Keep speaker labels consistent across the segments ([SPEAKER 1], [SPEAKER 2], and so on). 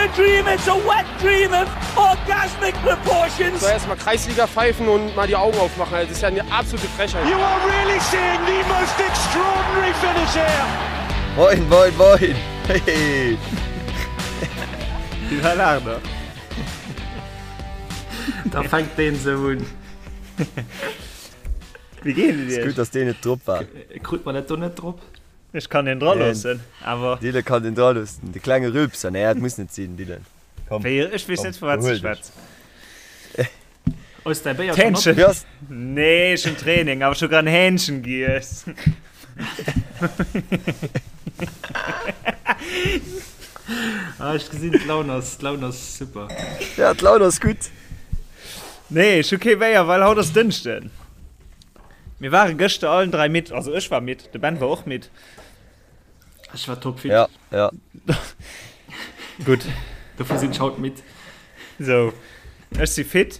[SPEAKER 1] a dream, it's a wet dream of orgasmic proportions.
[SPEAKER 2] So erstmal Kreisliga pfeifen und mal die Augen aufmachen. Also, das ist ja eine absolute Frechheit.
[SPEAKER 1] You are really seeing the most extraordinary finish here.
[SPEAKER 3] Moin, moin, moin! Hey!
[SPEAKER 4] Déi war laang nach.
[SPEAKER 5] Da fänkt deen sou un.
[SPEAKER 4] Wéi geet et
[SPEAKER 3] Iech?
[SPEAKER 4] Iech?
[SPEAKER 3] Gutt, dass deen net drop war.
[SPEAKER 5] Krut mer dat do net drop?
[SPEAKER 4] Ech kann deen dra loossen, awer.
[SPEAKER 3] Dylan kann den dra loossen. De klenge Rülpser. Nee, dat muss net sinn, Dylan. Komm.
[SPEAKER 4] Wéi, ech weess net, vu wat s de schwätz.
[SPEAKER 5] Hues däi Béier schonn op?
[SPEAKER 4] D'Hähnchen.
[SPEAKER 3] Wéi ass.
[SPEAKER 4] Nee, ech hunn Training, awer ech hu grad en Hähnchen giess.
[SPEAKER 5] Ah, ech gesinn, d'Laun ass, d'Laun ass super.
[SPEAKER 3] Ja, d'Laun ass gutt.
[SPEAKER 4] Nee, ech hu kee Béier, well haut ass Dënschden. Mir ware gëschter allen 3 midd, also ech war midd, de Ben war och midd.
[SPEAKER 5] Ech war topfit.
[SPEAKER 3] Ja, ja.
[SPEAKER 4] Gutt.
[SPEAKER 5] Dofir sinn ech haut midd.
[SPEAKER 4] Sou, ech si fit.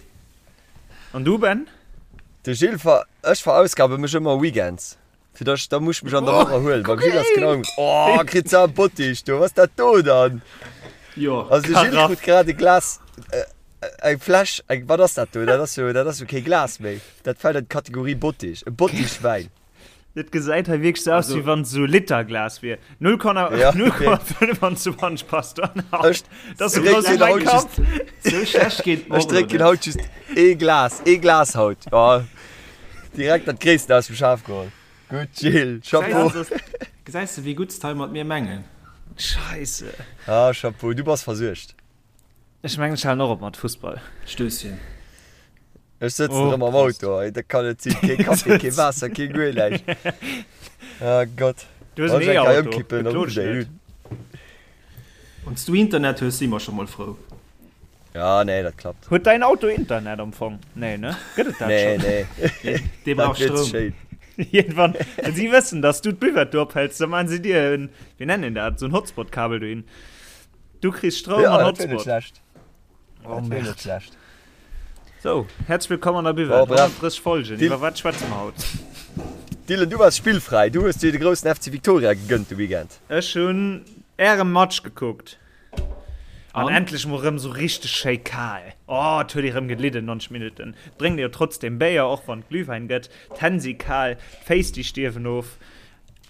[SPEAKER 4] An du, Ben?
[SPEAKER 3] De Gilles ver, ech verausgabe mech ëmmer weekends, fir dass, da muss ech mech an der Woch erhuelen. Beim Gilles ass genau ëm, oh, kritt se am Bottich do, was dat do dann?
[SPEAKER 5] Jo.
[SPEAKER 3] Also de Gilles
[SPEAKER 4] Karaff.
[SPEAKER 3] krut grad e Glas, eng Fläsch, eng, wat ass dat do? Dat ass jo, dat ass jo kee Glas méi. Dat fält an d'Kategorie Bottich, e Bottich Wäin.
[SPEAKER 4] Dat gesäit hei wierklech sou aus, wéi wann et sou Literglas wier. 0,25 passt do an haut. Dat ass sou grouss wéi mäi Kapp.
[SPEAKER 5] Sou schlecht geet et mer
[SPEAKER 3] Ech
[SPEAKER 5] och elo
[SPEAKER 3] drénken
[SPEAKER 5] net.
[SPEAKER 3] haut just ee Glas, ee Glas haut. Jo, direkt dat Gréissten aus dem Schaf geholl. Gutt Gilles, Chapeau.
[SPEAKER 5] Gesäis de, wéi gutt s d'hei mat mir mengen?
[SPEAKER 4] Scheisse.
[SPEAKER 3] Ah, Chapeau, du bass versuergt.
[SPEAKER 4] Ech mengen, ech halen och op mat Fussball.
[SPEAKER 5] Stösschen.
[SPEAKER 3] Ech sëtzen
[SPEAKER 4] Oh,
[SPEAKER 3] erëm am
[SPEAKER 4] Prost.
[SPEAKER 3] Auto, ey, dat kann net sinn. Kee Kaffi, kee Waasser, kee guer näischt. Ah Gott.
[SPEAKER 4] Du hues en
[SPEAKER 3] Wann ech eng Kéier
[SPEAKER 4] E-Auto,
[SPEAKER 3] ëmkippen, dann
[SPEAKER 4] beklo
[SPEAKER 3] rufft
[SPEAKER 4] dech
[SPEAKER 3] ech
[SPEAKER 4] net.
[SPEAKER 3] un.
[SPEAKER 5] Wann s du Internet hues, si mer scho mol frou.
[SPEAKER 3] Ja, nee, dat klappt.
[SPEAKER 4] Huet däin Auto Internet am Fong? Nee, ne? Gëtt et dat
[SPEAKER 3] Nee,
[SPEAKER 4] schonn?
[SPEAKER 3] nee.
[SPEAKER 5] Dee
[SPEAKER 3] Dat
[SPEAKER 5] brauch
[SPEAKER 3] wier ze
[SPEAKER 5] Stroum.
[SPEAKER 3] schéin.
[SPEAKER 4] Iergendwann, wann si wëssen, dass du d'Buvette do ophäls, da maachen si dir en, wéi nennen een dat, esou en Hotspot-Kabel dohin. Du kriss Stroum
[SPEAKER 3] Ja,
[SPEAKER 4] an
[SPEAKER 3] dat wier net
[SPEAKER 4] Hotspot.
[SPEAKER 3] schlecht.
[SPEAKER 4] Oh,
[SPEAKER 3] Dat wier net
[SPEAKER 4] Merde.
[SPEAKER 3] schlecht.
[SPEAKER 4] Sou, häerzlech wëllkomm an der
[SPEAKER 3] Bon,
[SPEAKER 4] Buvette.
[SPEAKER 3] bref.
[SPEAKER 4] 130 Folgen.
[SPEAKER 3] Dil
[SPEAKER 4] Iwwer wat schwätze mer haut?
[SPEAKER 3] Dylan, du waars spillfräi. Du hues dir de groussen FC Victoria gegënnt de Weekend.
[SPEAKER 4] Ech hunn Ärem Match gekuckt. An
[SPEAKER 5] An?
[SPEAKER 4] endlech mol rëm sou richteg schéi kal. Oh, et huet ee rëm gelidden, 90 Minutten. Et drénkt ee jo trotzdem Béier, och wann et Glühwäin gëtt. D'Hänn si kal, d'Féiss déi stierwen of.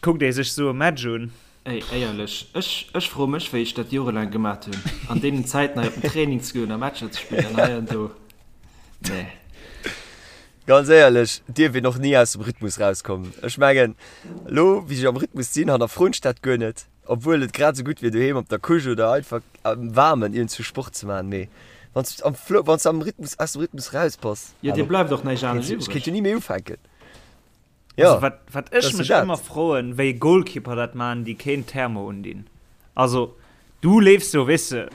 [SPEAKER 4] Kuckt ee sech sou e Match un.
[SPEAKER 5] Ey, éierlech, ech, ech froe mech, wéi ech dat jorelaang gemat hunn, an deenen Zäiten hei op den Training ze goen a Matcher ze spillen an hei an do. Nee.
[SPEAKER 3] Ganz éierlech, dierf een och ni aus dem Rhythmus rauskommen. Ech mengen, elo wéi ech am Rhythmus sinn, hannerfroen ech dat guer net, obwuel et grad esou gutt wier, doheem op der Couche oder einfach am Waarmen iergendwou Sport ze maachen. Mee wann s am Flow, wann s am Rhythmus, aus dem Rhythmus raus bass,
[SPEAKER 5] Jo, dir
[SPEAKER 3] hallo,
[SPEAKER 5] bleift och näischt anescht
[SPEAKER 3] ech kéint
[SPEAKER 5] iwwreg.
[SPEAKER 3] jo ni méi ufänken. Ja,
[SPEAKER 4] Also wat, wat ech
[SPEAKER 3] dat ass
[SPEAKER 4] mech
[SPEAKER 3] dat.
[SPEAKER 4] ëmmer froen, wéi Goalkeeper dat man, déi keen Thermo undinn. Also du leefs jo, weess de,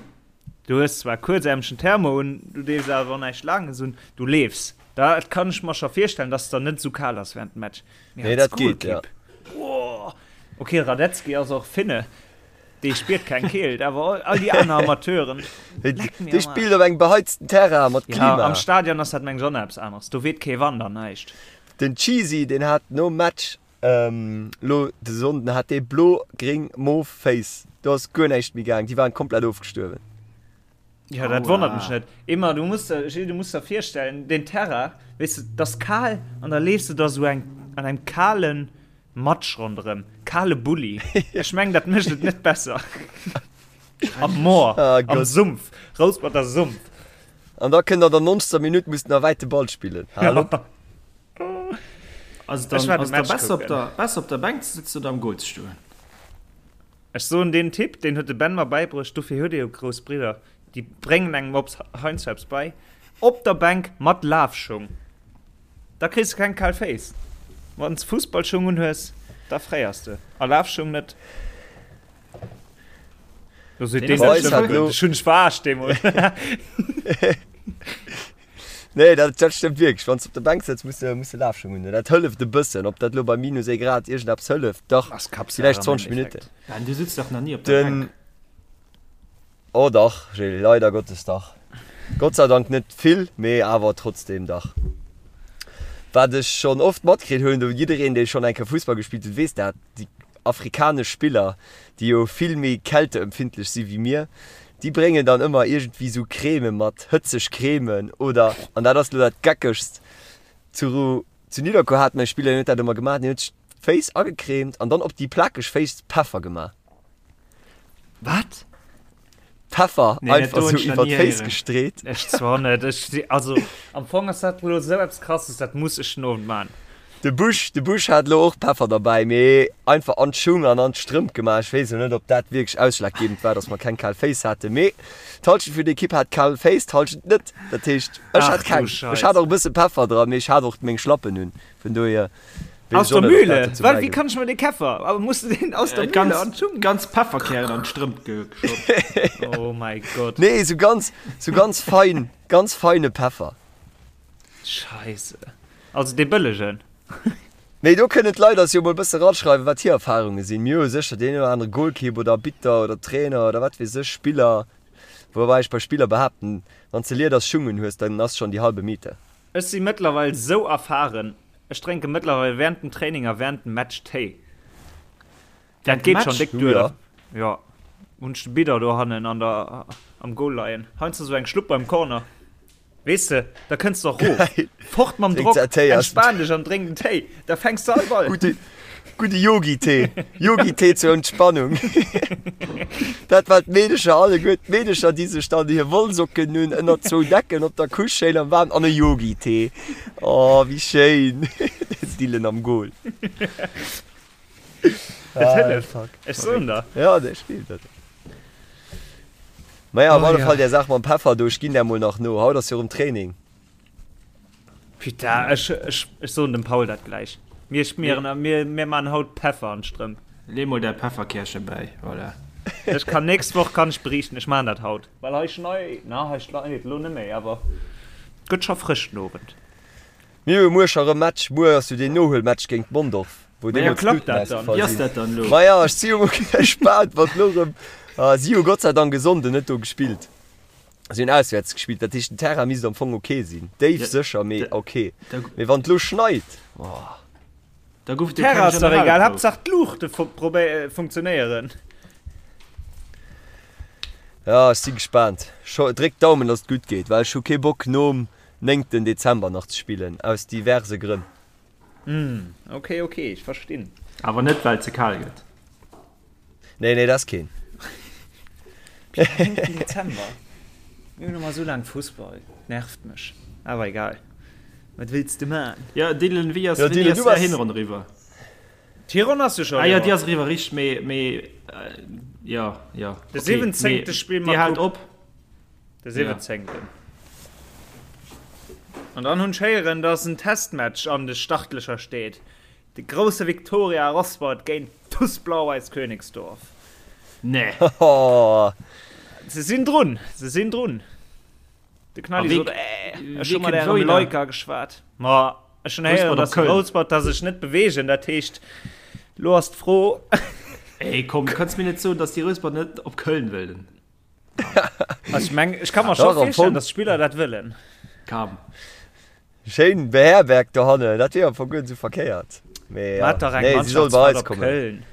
[SPEAKER 4] du hues zwar kuerzärmegen Thermo un, du dees awer och näischt Laanges un, du leefs. Da kann ech mer scho virstellen, dass et der net esou kal ass während dem Match. Mee
[SPEAKER 3] Nee,
[SPEAKER 4] als
[SPEAKER 3] dat geet, ja.
[SPEAKER 4] Goalkeep, boah. Okay, Radetzky ass och Finne, dee spiert keng Keelt, awer all déi aner Amateuren, leck mir
[SPEAKER 3] Dee
[SPEAKER 4] am
[SPEAKER 3] spillt
[SPEAKER 4] Aarsch.
[SPEAKER 3] op engem beheizten Terrain mat
[SPEAKER 4] Ja,
[SPEAKER 3] Klima.
[SPEAKER 4] am Stadion ass dat meng ech och nach eppes aneres, do weht kee Wand an näischt.
[SPEAKER 3] Den Cheesy deen hat nom Match lo de Sonnden hat dee blo gréng mauve Féiss, do ass guer näischt méi gaang, déi waren komplett ofgestuerwen.
[SPEAKER 4] Jo dat wonnert mech net. Emma du muss der Gilles du muss der virstellen den Terrain weess de et ass kal an da leefs de da sou eng an engem kalen Matsch ronderëm, kale Bulli, ech mengen dat mécht et net besser. Am Moor, am Sumpf, Rouspert Sumpf.
[SPEAKER 3] An da kënnt an der 90. Minutt muss den wäite Ball spillen. Hal op.
[SPEAKER 5] Also dann
[SPEAKER 4] Ech war de
[SPEAKER 5] ass da
[SPEAKER 4] Match
[SPEAKER 5] besser op
[SPEAKER 4] kucken.
[SPEAKER 5] der, besser op der Bänk ze sitzen oder am Goal ze stoen?
[SPEAKER 4] Ech soen deen Tipp, deen huet de Ben mer bäibruecht, dofir huet ee jo grouss Bridder, déi bréngen engem ops heiansdo eppes bei, op der Bänk mat Lafschung, da kriss de keng kal Féiss. Wann s Fussballschung unhues, da fréiers de, a Lafschung net. Do seet deen, dat stëmmt guer net. Ech hunn dech verarscht deemools.
[SPEAKER 3] Nee, dat, dat stëmmt wierklech. Wann s de op der Bänk sëtz, muss de, muss de Lafschung hunn. Dat hëlleft e bëssen. Ob dat elo bei minus ee Grad iergendeppes hëlleft, dach,
[SPEAKER 4] Ass Kappsaach
[SPEAKER 3] villäicht
[SPEAKER 4] am
[SPEAKER 3] 20 Minutten.
[SPEAKER 4] Endeffekt.
[SPEAKER 5] Ben, du sitz dach nach ni op der
[SPEAKER 3] Den,
[SPEAKER 5] Bänk.
[SPEAKER 3] oh dach, Gilles, leider Gottes dach. Gott sei Dank net vill, mee awer trotzdem dach. Wat ech schonn oft matkritt hunn, do jiddereen, dee schonn eng Kéier Fussball gespillt huet, weess dat, déi afrikanesch Spiller, déi jo vill méi kälteempfindlech si wéi mir, Déi bréngen dann ëmmer iergendwéi sou Creme mat, hëtzeg Cremen oder, an dat ass lo dat Geckegst, zu zu Nidderkuer hat mer e Spiller, deen huet dat ëmmer gemaach, deen huet sech d'Féiss agecremt an dann op déi plakeg Féiss Peffer gemaach.
[SPEAKER 4] Wat?
[SPEAKER 3] Peffer nee, einfach sou iwwer d'Féiss gestreet.
[SPEAKER 4] Ech zwar net. Ech, also am Fong ass dat lo sou eppes krasses, dat muss ech den Owend man.
[SPEAKER 3] De Busch, de Busch hat lo och Peffer derbäi, mee einfach an d'Schung an an d'Strëmp gemaach. Ech weess elo net, ob dat wierklech ausschlaggebend war, dass mer keng kal Féiss haten, mee d'Halschent vun der Ekipp hat kal Féiss, d'Halschent net. Dat heescht, ech hat keng. Ech hat och e bësse Peffer dran, mee ech hat och meng Schlappen un, vun dohier.
[SPEAKER 4] Aus der Mühle? Wat, wéi kann ech mer dee Käffer? Aber muss du den aus der Mühle
[SPEAKER 5] ganz,
[SPEAKER 4] an d'Schung?
[SPEAKER 5] Ganz Pefferkären an d'Strëmp
[SPEAKER 4] geschott. Oh mäi Gott.
[SPEAKER 3] Nee, sou ganz, sou ganz fein, ganz feine Peffer.
[SPEAKER 4] Scheisse. Also dee bëllegen.
[SPEAKER 3] Mee do kënnen d'Leit eis jo mol bësse raschreiwen, wat hir Erfahrunge sinn. Mir hu sécher deen oder anere Goalkeep oder Arbitter oder Trainer oder wat weess ech, Spiller. Woubäi ech bei Spiller behaapten, wann s de Lieders Schung un hues, dann ass schonn déi halbe Miete.
[SPEAKER 4] Ech si mëttlerweil sou erfahren, ech drénke mëttlerweil während dem Training a während dem Match Téi. Dat geet schon déck duer. Jo, hunn ech de Bidder dohannen an der am Goal leien. Heiansdo sou eng Schlupp beim Corner. Weess de, da kënns de och rof. Fort mam Drock, entspan dech an drénk en Téi, da fänks de all Ball.
[SPEAKER 3] Gudde, gudde Yogi-Tee. Yogi-Tee zur Entspannung. Dat war d'Meedecher alleguer, d'Meedecher, déi sech dann hir Wollsocken hunn ënner zwou Decken op der Couche schéin am Waarmen an e Yogi-Tee. Oh, wéi schéin! Den Dylan am Goal.
[SPEAKER 4] Et hëlleft, ech soen der.
[SPEAKER 3] Ja, dat stimmt. Dat. Maja, op alle Fall där Saach mam Peffer do, ech ginn där mol nach no. Haut ass jo erëm Training.
[SPEAKER 4] Putain, ech, ech, ech soen dem Paul dat gläich. Mir schmieren, mir, mir man haut Peffer an d'Strëmp.
[SPEAKER 5] Lee mol däi Pefferkärche bäi, voilà.
[SPEAKER 4] Ech kann nächst Woch kann ech beriichten, ech man dat haut. Well hei schnei, na hei schneit et lo net méi, awer gëtt scho frësch den Owend.
[SPEAKER 3] Mir hu muer scho rëm Match, muer ass jo deen Nohuelmatch géint Mondorf, wou
[SPEAKER 4] deemools
[SPEAKER 3] klappt
[SPEAKER 4] d'Luuten
[SPEAKER 3] dat dann?
[SPEAKER 4] ausgefall
[SPEAKER 5] Wéi ass
[SPEAKER 3] sinn.
[SPEAKER 5] dat dann elo?
[SPEAKER 3] Maja, ech si jo mol gespaant, wat elo rëm, si hu Gott sei Dank e Sonnden net do gespillt. Si hunn auswäerts gespillt, dat heescht den Terrain misst am Fong ok sinn. Déif sécher, mee ok. Mee wann et elo schneit, oh.
[SPEAKER 5] Da gouf et jo keng
[SPEAKER 4] Terrain ass dach egal,
[SPEAKER 5] Generalprouf.
[SPEAKER 4] Haaptsaach d'Luuchte funktionéieren.
[SPEAKER 3] Ja, ech si gespaant. Dréck d'Daumen, datt et gutt geet, well ech hu kee Bock nom néngten Dezember nach ze spillen, aus diverse Grënn.
[SPEAKER 4] Hm, ok, ok, ech verstinn.
[SPEAKER 5] Awer net well et ze kal gëtt.
[SPEAKER 3] Nee, nee, dat ass keen.
[SPEAKER 4] Néngten Dezember? Mir hunn ëmmer esou laang Fussball, nervt mech. Awer egal, wat wëlls de man?
[SPEAKER 5] Jo, Dylan, wéi ass
[SPEAKER 3] Jo,
[SPEAKER 5] wéini
[SPEAKER 3] Dylan,
[SPEAKER 5] ass
[SPEAKER 3] du
[SPEAKER 5] är
[SPEAKER 3] bass.
[SPEAKER 5] Hinronn eriwwer?
[SPEAKER 4] D'Hironn ass jo scho
[SPEAKER 5] Ah jo, déi
[SPEAKER 4] eriwwer.
[SPEAKER 5] ass eriwwer, richteg, mee, mee, jo, jo,
[SPEAKER 4] De
[SPEAKER 5] ok,
[SPEAKER 4] siwwenzéngte
[SPEAKER 5] mee
[SPEAKER 4] spille
[SPEAKER 5] dir
[SPEAKER 4] mer
[SPEAKER 5] haalt
[SPEAKER 4] Coupe.
[SPEAKER 5] op?
[SPEAKER 4] De 17. An dann hunn ech héieren, dass en Testmatch an de Startlächer steet. De grousse Viktoria Rosport géint TuS Blau-Weiß Königsdorf.
[SPEAKER 5] Nee.
[SPEAKER 4] Se sinn drun, se sinn drun. De Knalli sot, äh, ech hu mat ärem Leuker geschwat. Ma ech hunn héieren, dass Rouspert da sech net beweegen. Dat heescht, lo ass d'Fro.
[SPEAKER 5] Ey, komm, du kanns mir net soen, dass déi Rouspert net op Köln wëllen.
[SPEAKER 4] Also ich meng, ich kann mir schon vorstellen, dass Spieler dat wëllen.
[SPEAKER 5] Kam.
[SPEAKER 3] Schéin beherbergt dohannen, dat wier am Fong guer net sou verkéiert. Mee ja, nee, si soll bei eis kommen.
[SPEAKER 4] Köln.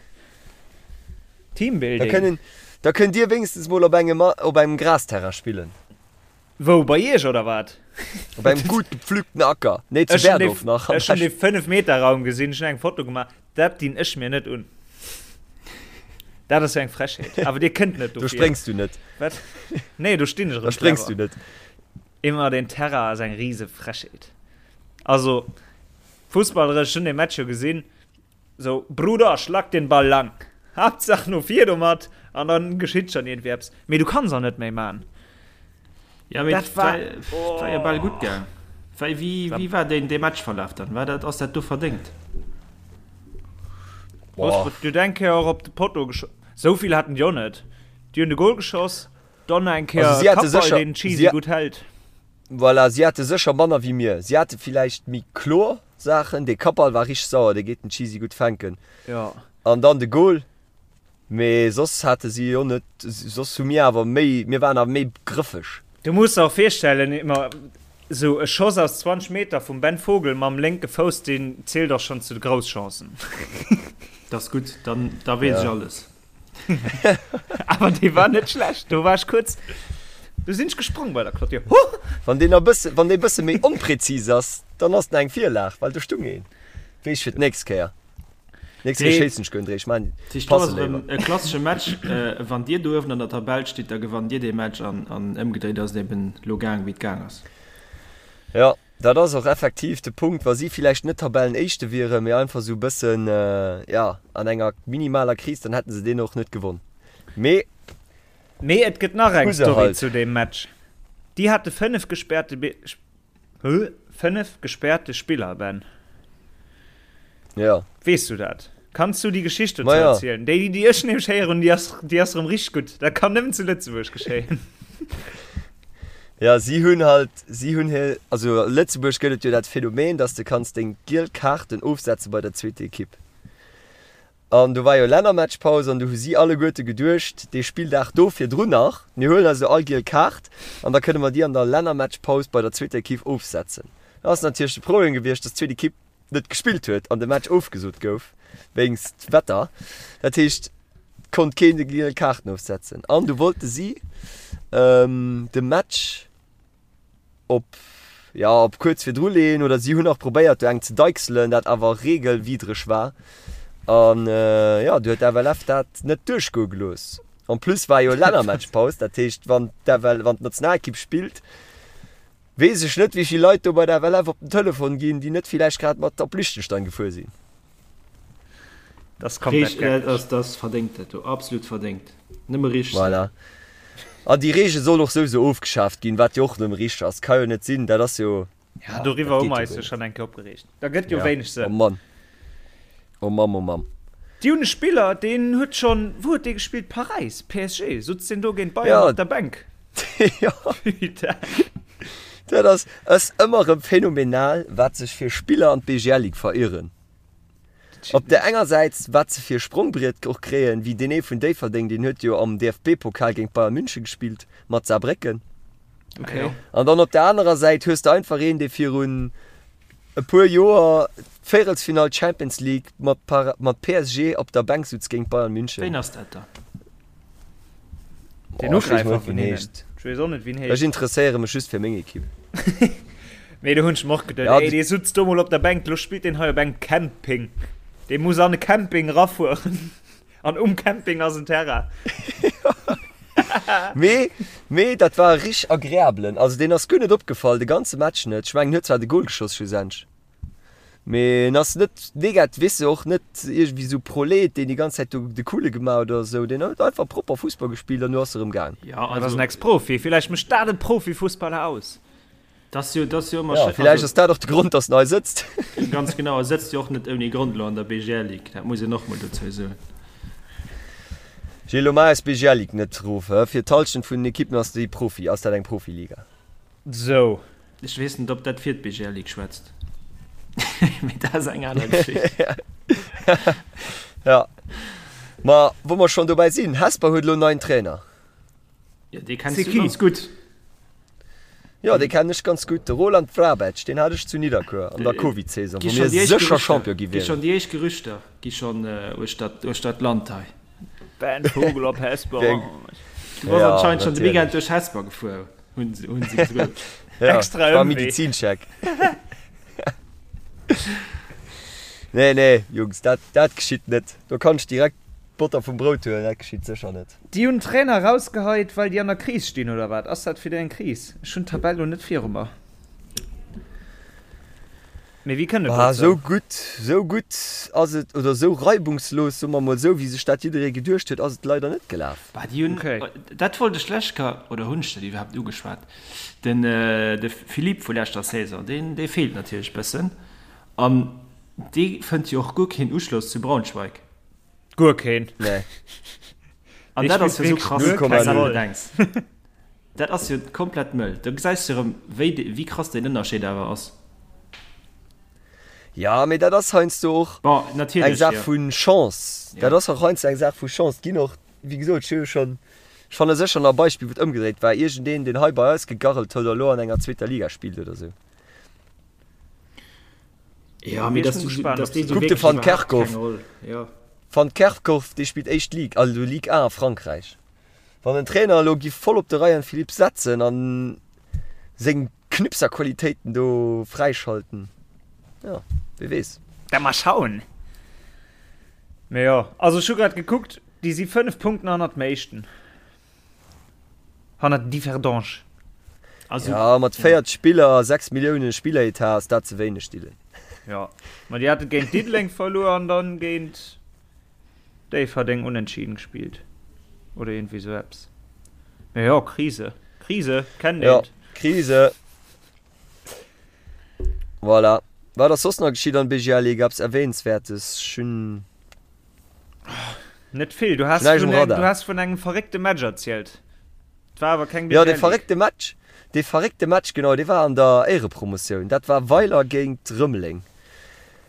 [SPEAKER 4] Teambuilding.
[SPEAKER 3] Da kënnen, da kënnt Dir wéinstens mol op engem, op engem Grasterrain spillen.
[SPEAKER 4] Wou, bei Iech oder wat?
[SPEAKER 3] Op engem gutt gepflügten Acker. Nee, zu Berdorf nach.
[SPEAKER 4] Ech hunn dee 5 Meter Raum gesinn, ech hunn eng Foto gemaach. Dat dinn ech mir net un. Dat ass jo eng Frechheet. Awer dir kënnt net
[SPEAKER 3] dofir. Do spréngs du net.
[SPEAKER 4] Wat? Nee, do stinn ech
[SPEAKER 3] erëm. Da spréngs du net.
[SPEAKER 4] Immer den Terrain ass eng rise Frechheet. Also, fussballeresch, ech hunn dee Match jo gesinn. Sou, Bruder, schlag den Ball lang. Haaptsaach no vir domat an dann geschitt schon iergendwéi eppes. Mee du kanns och net méi man.
[SPEAKER 5] Ja, mee dat war, oh. war jo bal gutt gaang. Wéi, wéi, wéi war deen, dee Matchverlaf dann? War dat, ass dat do verdéngt?
[SPEAKER 4] Boah. Du huet eng Kéier och op de Potto geschoss. Sou vill haten déi och net. Déi hunn de Goal geschoss, dann nach eng Kéier
[SPEAKER 3] Also si hate
[SPEAKER 4] Kappball,
[SPEAKER 3] sécher,
[SPEAKER 4] deen Cheesy
[SPEAKER 3] si,
[SPEAKER 4] gutt hält.
[SPEAKER 3] voilà, si hate sécher manner wéi mir. Si hate villäicht méi kloer Saachen. Dee Kappball war richteg sauer, dee geet den Cheesy gutt fänken.
[SPEAKER 4] Ja.
[SPEAKER 3] An dann de Goal. Mee soss hate si jo net, soss hu mir awer méi, mir waren awer méi grëffeg.
[SPEAKER 4] Du muss der och virstellen, immer esou e Schoss aus 20 Meter vum Ben Vogel mam lénke Fouss, deen zielt och schonn zu de Grousschancen.
[SPEAKER 5] Dat ass gutt, dann da weess ech alles.
[SPEAKER 4] Awer dee war net schlecht. Do war ech kuerz, do sinn ech gesprong bei der Clôture. Huh!
[SPEAKER 3] Wann deen e bësse, wann dee bësse méi onpräzis ass, dann ass en eng Virlag, well do stung een. Weess ech fir d'nächst Kéier. Nächst Kéier schéissen ech guer net, ech maan
[SPEAKER 5] Tisch, do ass erëm e klassesche Match. Wann dir do uewen an der Tabell stitt, da gewannt dir dee Match an, an ëmgedréit ass et eben lo gaang wéi et gaang ass.
[SPEAKER 3] Jo, dat ass och effektiv de Punkt. Wa si villäicht net Tabellenéischte wieren, mee einfach esou e bëssen, jo, an enger minimaler Kris, dann hätte se deen och net gewonn. Mee.
[SPEAKER 4] Mee et gëtt nach eng Story zu deem Match. Déi hate 5 gespäerte 5 gespäerte Spiller, Ben.
[SPEAKER 3] Ja.
[SPEAKER 4] Weess du dat? Kanns du déi Geschicht dozou ja. erzielen? Déi, déi ech nämlech héieren, déi ass, déi ass erëm richteg gutt. Dat kann nëmmen zu Lëtzebuerg geschéien.
[SPEAKER 3] Ja, si hunn halt, si hunn hir, also a Lëtzebuerg gëtt et jo dat Phänomen, dass de kanns deng giel Kaarten ofsetze bei der zweeter Ekipp. An do war jo Lännermatchpaus an do hu si alleguerte geduecht, dee Spilldag do virdrun nach, mir huelen eis elo all giel Kaart an da kënne mer déi an der Lännermatchpaus bei der zweeter Ekipp ofsetzen. Da ass natierlech de Problem gewiescht, dass d'zweet Ekipp net gespillt huet an de Match ofgesot gouf wéinst Wetter. Dat heescht, et konnt keen déi giel Kaarten ofsetzen an du wollte si de Match, op ja op kuerz virdru leeën oder si hunn nach probéiert do eng ze deichselen, dat awer regelwidreg war an ja du huet d'FLF dat net duerchgoe gelooss. En plus war jo Lännermatchpaus, dat heescht wann d'FL wann d'Nationalekipp spillt, weess ech net wéi vill Leit do bei der FLF op den Telefon ginn, déi net villäicht grad mat op Liechtenstein gefuer sinn.
[SPEAKER 5] Das komplett geckeg. Dat ass verdéngt dat do, absolut verdéngt. Nëmme richteg.
[SPEAKER 3] Voilà. An déi Reegel soll och souwisou ofgeschaaft ginn, wat jo och nëmme richteg ass. Ka jo net sinn, dat ass jo.
[SPEAKER 4] Ja, doriwwer hu mer eis jo schonn eng Kéier opgereegt. Da gëtt jo wéineg
[SPEAKER 3] Sënn. Oh Mann. Oh Mamm, oh Mamm.
[SPEAKER 4] Déi hunn e Spiller, deen huet schonn, wou huet dee gespillt? Paräis, PSG, sutz deen do géint Bayern op der Bänk.
[SPEAKER 3] Jo.
[SPEAKER 4] Putain.
[SPEAKER 3] Dat ass, ass ëmmer erëm phänomenal, wat sech fir Spiller an d'BGL-Ligue verieren. Op där enger Säit, wat se fir e Sprongbriet och kréien, wéi deen ee vun Déifferdeng, deen huet jo am DFB-Pokal géint Bayern München gespillt mat Saarbrécken.
[SPEAKER 4] Okay.
[SPEAKER 3] An dann op där anerer Säit hues de einfach een, dee virun e puer Joer d'Véierelsfinall Champions League mat mat PSG op der Bänk sutz géint Bayern München.
[SPEAKER 5] Ween ass dat da?
[SPEAKER 4] Den Ugräifer vun hinnen. Ech weess och net, wéi en heescht.
[SPEAKER 3] Ech interesséiere mech just fir meng Ekipp.
[SPEAKER 4] Mee do hunn ech mer och geduet, ey, dee sutz do mol op der Bänk, lo spillt deen hei op engem Camping. Dee muss an e Camping erafueren. An um Camping ass en Terrain.
[SPEAKER 3] Mee, mee dat war e richteg agreabelen. Also deen ass guer net opgefall, de ganze Match net. Ech mengen, en huet zwar de Gol geschoss schlussendlech. Mee en ass net negat, weess de, och net iergendwéi sou Prolet, deen déi ganz Zäit do de Coole gemaach huet oder sou. Deen huet einfach propper Fussball gespillt an du ass erëm gaang.
[SPEAKER 5] Ja,
[SPEAKER 4] Dat ass en Ex-Profi, villäicht mécht dat e Profifussballer aus.
[SPEAKER 5] Dat ass jo, dat ass jo ëmmer
[SPEAKER 3] Ja, schéin. villäicht ass dat och de Grond, datt en hei sëtzt.
[SPEAKER 5] Ganz genau, e sëtzt jo och net ouni Grond elo an der BGL-Ligue, dat muss een och mol dozou soen.
[SPEAKER 3] Gilles, lo maach eis BGL-Ligue net erof, hä? Fir d'Hallschent vun den Ekippen ass déi Profi, ass dat eng Profiliga.
[SPEAKER 4] Sou.
[SPEAKER 5] Ech weess net, ob dat fir d'BGL Ligue schwätzt. Mee dat ass eng aner Geschicht.
[SPEAKER 3] Ja. Ma wou mer schonn dobäi sinn, Hesper huet elo en neien Trainer.
[SPEAKER 5] Ja, dee kenns du ganz gutt.
[SPEAKER 3] Jo, dee kennen ech ganz gutt, de Roland Vrabec, deen hat ech zu Nidderkuer an der Covid-Saison, wou mir sécher Champion gi
[SPEAKER 5] wieren. Gi schonn déi éischt Gerüchter gi schonn uechter d'Land hei.
[SPEAKER 4] Ben Vogel op Hesper.
[SPEAKER 5] Du bass anscheinend schonn de Weekend duerch Hesper gefuer. Hunn se gesot.
[SPEAKER 3] Ja,
[SPEAKER 4] Extra
[SPEAKER 3] war
[SPEAKER 4] Ëmwee.
[SPEAKER 3] Medizincheck. Nee, nee, Jungs, dat, dat geschitt net. Do kann ech direkt d'Botter vum Brout huelen, dat geschitt sécher net.
[SPEAKER 4] Déi hunn Trainer rausgeheit, well déi an der Kris stinn, oder wat? Ass dat fir déi eng Kris? Ech hunn d'Tabell lo net viru mer. Mee wéi kënnt et
[SPEAKER 3] Bah,
[SPEAKER 4] dozou?
[SPEAKER 3] sou gutt, sou gutt ass et, oder sou reibungslos, soe mer mol sou, wéi sech dat jidderee geduecht huet, ass et leider net gelaf.
[SPEAKER 5] Bah, déi hunn,
[SPEAKER 4] Okay.
[SPEAKER 5] dat wollt ech lech ka, oder hunn ech dat iwwerhaapt ugeschwat? Den, de Philippe vu leschter Saison, deen, dee feelt natierlech bëssen. An dee fënnt jo och guer keen Uschloss zu Braunschweig.
[SPEAKER 4] Guer keen.
[SPEAKER 3] Nee.
[SPEAKER 5] An
[SPEAKER 4] Dee
[SPEAKER 5] dat ass
[SPEAKER 4] spillt
[SPEAKER 5] jo sou
[SPEAKER 4] wierklech
[SPEAKER 5] krass,
[SPEAKER 4] guer
[SPEAKER 5] wann s
[SPEAKER 4] keng
[SPEAKER 5] du
[SPEAKER 4] Roll.
[SPEAKER 5] bedenks. Dat ass jo komplett mëll. Do gesäis de erëm, wéi, wéi krass deen Ënnerscheed awer ass.
[SPEAKER 3] Ja, mee dat ass heiansdo och
[SPEAKER 5] Bon,
[SPEAKER 3] eng
[SPEAKER 5] natierlech,
[SPEAKER 3] Saach
[SPEAKER 5] jo.
[SPEAKER 3] vu Chance. Dat
[SPEAKER 5] Ja.
[SPEAKER 3] ass och heiansdo eng Saach vu Chance. Et ginn och, wéi gesot, ech hu jo schonn, ech fanne sécher nach e Beispill, wou et ëmgedréit war, iergendeen, deen hei bei eis gegarrelt huet a lo an enger zweeter Liga spillt oder esou.
[SPEAKER 5] Ja, mee
[SPEAKER 4] Ech
[SPEAKER 5] dass
[SPEAKER 4] bin
[SPEAKER 5] du,
[SPEAKER 4] gespannt,
[SPEAKER 5] dass
[SPEAKER 4] ob
[SPEAKER 5] dee
[SPEAKER 4] se
[SPEAKER 5] sou
[SPEAKER 3] Kuck de
[SPEAKER 5] wierklech
[SPEAKER 3] Van
[SPEAKER 5] iwwerhaapt keng
[SPEAKER 3] Kerkhoff.
[SPEAKER 5] Roll, jo.
[SPEAKER 3] Van Kerkhoff, dee spillt éischt Ligue, also Ligue 1 a Frankräich. Wann den Trainer elo giff voll op de Ryan Philipps setzen an seng Knipserqualitéiten do fräischalten, jo, wie weess.
[SPEAKER 4] Da mal schauen. Mee jo, also ech hu grad gekuckt, déi si 5 Punkten hannert dem Éischten. Hannert Differdange.
[SPEAKER 3] Also, ja, mat 40 Spiller, 6 Milliounen Spilleretat ass dat ze wéineg, Dylan.
[SPEAKER 4] Ja, ma déi hate géint Diddeleng verluer an dann géint Déifferdeng unentschieden gespillt. Oder iergendwéi sou eppes. Mee jo, Krise. Krise, kennt
[SPEAKER 3] een. Ja, Krise. Voilà. Wat ass soss nach geschitt an BGL Ligue? Eppes Erwähnenswertes? Ech hunn.
[SPEAKER 4] Net vill. Du has vun, eng, du has vun engem verréckte Match erzielt. Et war awer keng
[SPEAKER 3] BGL. Ja, dee verréckte Match, dee verréckte Match, genau, dee war an der Éierepromotioun. Dat war Weiler géint Rëmeleng.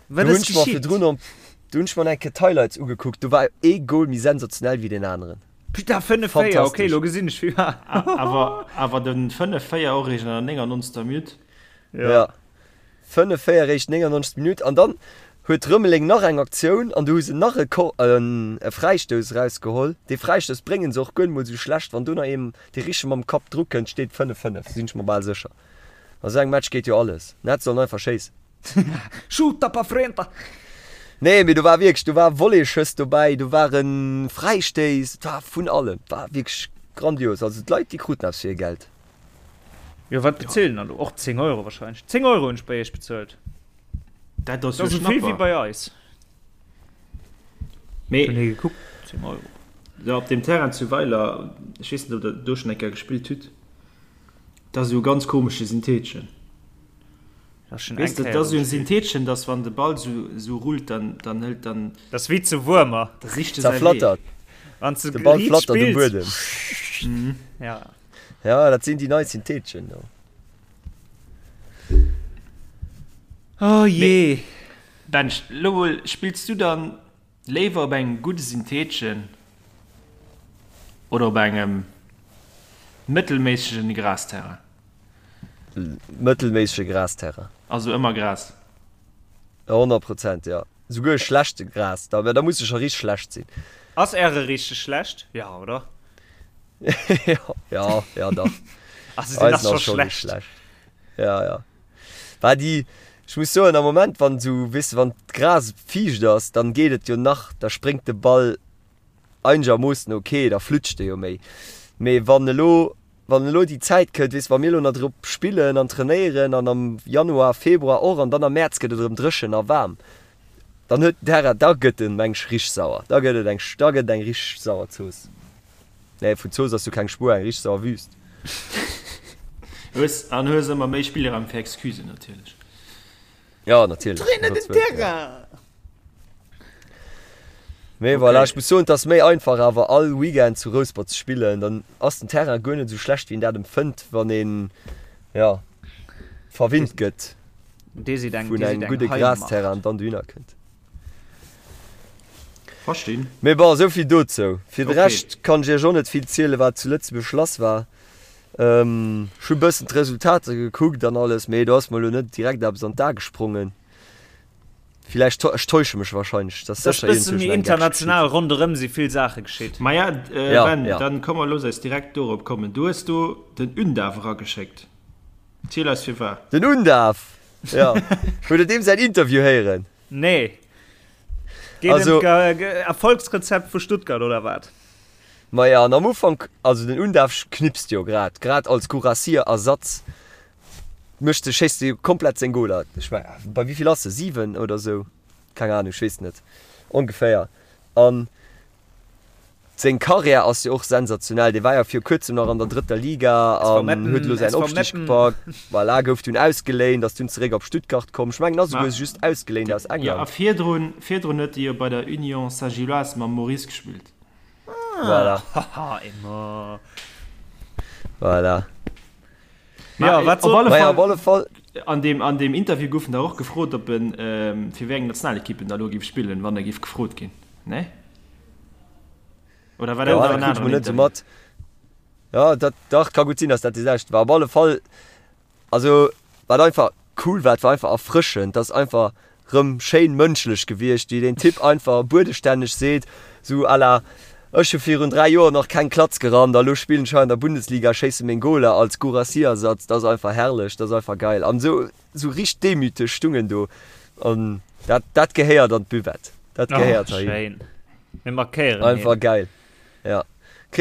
[SPEAKER 4] Wat ass geschitt?
[SPEAKER 3] Do hunn ech mer eng Kéier d'Highlights ugekuckt. Do war ee Goal méi sensationell wéi deen aneren.
[SPEAKER 4] Putain, 5-4, okay, lo gesinn ech wéi
[SPEAKER 5] war. Awer, awer den 5-4 och eréischt an der 99. Minutt.
[SPEAKER 3] Ja. Ja. 5-4 eréischt 99. Minutt an dann huet Rëmeleng nach eng Aktioun an do hu se nach e Ko e Fräistouss erausgeholl. Dee Fräistouss bréngen se och guer net mol esou schlecht. Wann do nach een dee richteg mam Kapp dru kënnt, steet 5-5, sinn ech mer bal sécher. A sou engem Match geet jo alles. Net sollen einfach schéissen.
[SPEAKER 4] Shoota pa frenta!
[SPEAKER 3] Nee, mee do war wierklech, do war Volleyschëss dobäi, do ware Fräistéiss, et war vun allem, et war wierklech grandios. Also d'Leit, déi kruten eppes fir hir Geld.
[SPEAKER 4] Jo, wat bezilt en dann do? Och 10 Euro wahrscheinlech. 10 Euro hunn ech bei iech bezuelt.
[SPEAKER 5] Dat ass jo
[SPEAKER 4] esou vill wéi
[SPEAKER 5] Schnapper.
[SPEAKER 4] bei eis.
[SPEAKER 5] Mee
[SPEAKER 4] Hunn hie gekuckt, 10 Euro.
[SPEAKER 5] jo, op deem Terrain zu Weiler, ech weess net, ob der do schonn eng Kéier gespillt hutt, dat ass esou e ganz komesche Syntheetchen.
[SPEAKER 4] Dat ass schon
[SPEAKER 5] Weess
[SPEAKER 4] eng
[SPEAKER 5] de, dat
[SPEAKER 4] Kéier
[SPEAKER 5] ass esou en
[SPEAKER 4] gespillt.
[SPEAKER 5] Syntheetchen, dass wann de Ball esou esou rullt, dann dann hëlt dann
[SPEAKER 4] Dat ass wéi zu Wuermer.
[SPEAKER 5] da sicht e säi Wee.
[SPEAKER 3] Zerflattert.
[SPEAKER 4] Wann s de
[SPEAKER 3] De Ball
[SPEAKER 4] riit
[SPEAKER 3] flattert um
[SPEAKER 4] spills.
[SPEAKER 3] Buedem.
[SPEAKER 4] Ja.
[SPEAKER 3] Ja, dat sinn déi nei Syntheetchen do.
[SPEAKER 4] Oh jee.
[SPEAKER 5] Bench, lo mol, spills du dann léiwer op engem gudde Syntheetchen oder op engem mëttelméissegen Grasterrain?
[SPEAKER 3] Mëttelméissege Grasterrain.
[SPEAKER 5] Also ëmmer Gras?
[SPEAKER 3] 100 Prozent, jo. Souguer schlechte Gras, da, da muss e scho richteg schlecht sinn.
[SPEAKER 4] Ass äre richteg schlecht? Ja, oder?
[SPEAKER 3] Ja, ja, dach.
[SPEAKER 4] Also deen
[SPEAKER 3] Eisen
[SPEAKER 4] ass
[SPEAKER 3] ass
[SPEAKER 4] scho
[SPEAKER 3] scho richteg
[SPEAKER 4] schlecht.
[SPEAKER 3] schlecht. Ja, ja. War déi, ech muss soen, am Moment, wann esou, weess de, wann d'Gras fiicht ass, dann geet et jo nach, da spréngt de Ball einegermoossen ok, da flutscht e jo méi. Mee wann elo, wann elo déi Zäit kënnt, weess de, wa mir elo nach drop spillen an trainéieren an am Januar, Februar och an dann am Mäerz gëtt et erëm dréchen a waarm, dann huet den Terrain, da gëtt en, meng ech, richteg sauer. Da gëtt et eng, da gëtt et eng richteg sauer Zooss. Nee, vun Zooss ass jo keng Spuer, eng richteg sauer Wüst.
[SPEAKER 5] Hues, an hues ëmmer méi Spillraum fir Excusen natierlech.
[SPEAKER 3] Ja, natierlech.
[SPEAKER 4] Trainer den Terrain!
[SPEAKER 3] Mee okay. Voilà, ech muss soen, et ass méi einfach awer all Weekend zu Rouspert ze spillen, dann ass den Terrain guer net esou schlecht wéi een dat empfënnt, wann een ja verwinnt gëtt vun engem gudde Grasterrain an dann dohinner kënnt.
[SPEAKER 5] Verstinn.
[SPEAKER 3] Mee bon, esou vill dozou. Fir de Rescht kann ech iech och net vill zielen, wat zu Lëtzebuerg lass war. Ech hu bëssen d'Resultater gekuckt an alles, mee do ass mer elo net direkt eppes an d'A gesprongen. Villäicht, ech täusche mech wahrscheinlech,
[SPEAKER 4] dass sécher iergendwou schon eng Gag international ronderëm si vill Saache geschitt.
[SPEAKER 5] Maja, Ben, dann komm mer looss eis direkt dorop kommen. Du hues do den Undav erageschéckt. Ziel eis firwat.
[SPEAKER 3] Den Undav! Jo. Hutt der deem säin Interview héieren?
[SPEAKER 4] Nee. Geet ëm d'Erfolgsrezept vu Stuttgart, oder wat?
[SPEAKER 3] Maja, an am Ufank, also den Undav knipst jo grad, grad als Guirassy-Ersatz Mécht de, schéisst de komplett seng Goler. Ech meng, bei wéi vill ass e? 7 oder sou? Keng Ahnung, ech weess net. Ongeféier. An seng Karriär ass jo och sensationell. Dee war jo viru kuerzem nach an der drëtter Liga an huet elo säin Opstig gepackt. Voilà, gouf dunn ausgeléint, ass dunn zeréck op Stuttgart komm. Ech mengen, ass esouguer just ausgeléint aus
[SPEAKER 5] England. Jo, a virdrun, virdrun huet e jo bei der Union Saint-Gilloise mam Maurice gespillt.
[SPEAKER 3] Voilà.
[SPEAKER 4] Haha, Emma.
[SPEAKER 3] Voilà.
[SPEAKER 5] Ja,
[SPEAKER 4] wat soll
[SPEAKER 5] op
[SPEAKER 3] alle, op alle Fall.
[SPEAKER 5] An dem, an dem Interview goufen da och gefrot, ob en ähm, fir wéi eng Nationalekipp en da lo géif spillen, wann e géif gefrot ginn. Ne? Oder war dat
[SPEAKER 3] Ja,
[SPEAKER 5] nach
[SPEAKER 3] dat
[SPEAKER 5] en
[SPEAKER 3] krut ech
[SPEAKER 5] aneren
[SPEAKER 3] mol net sou
[SPEAKER 5] Interview?
[SPEAKER 3] mat. Ja, dat dach ka gutt sinn, dass dat dee selwechte war. Op alle Fall, also wat einfach cool war, et war einfach erfrëschend, dass einfach. Rëm schéin mënschlech gewiescht, wéi deen Typ einfach buedestänneg seet, sou à la, Ech hu virun 3 Joer nach keng Klatz gerannt a lo spillen ech hei an der Bundesliga, schéisse meng Goler als Guirassy-Ersatz. Dat ass einfach herrlech, dat ass einfach geil. An sou, sou richteg demüteg stung en do. An dat, dat gehéiert an d'Buvette. Dat gehéiert
[SPEAKER 4] heihin. Schéin. Mir markéieren
[SPEAKER 3] hien. Einfach geil. Ja.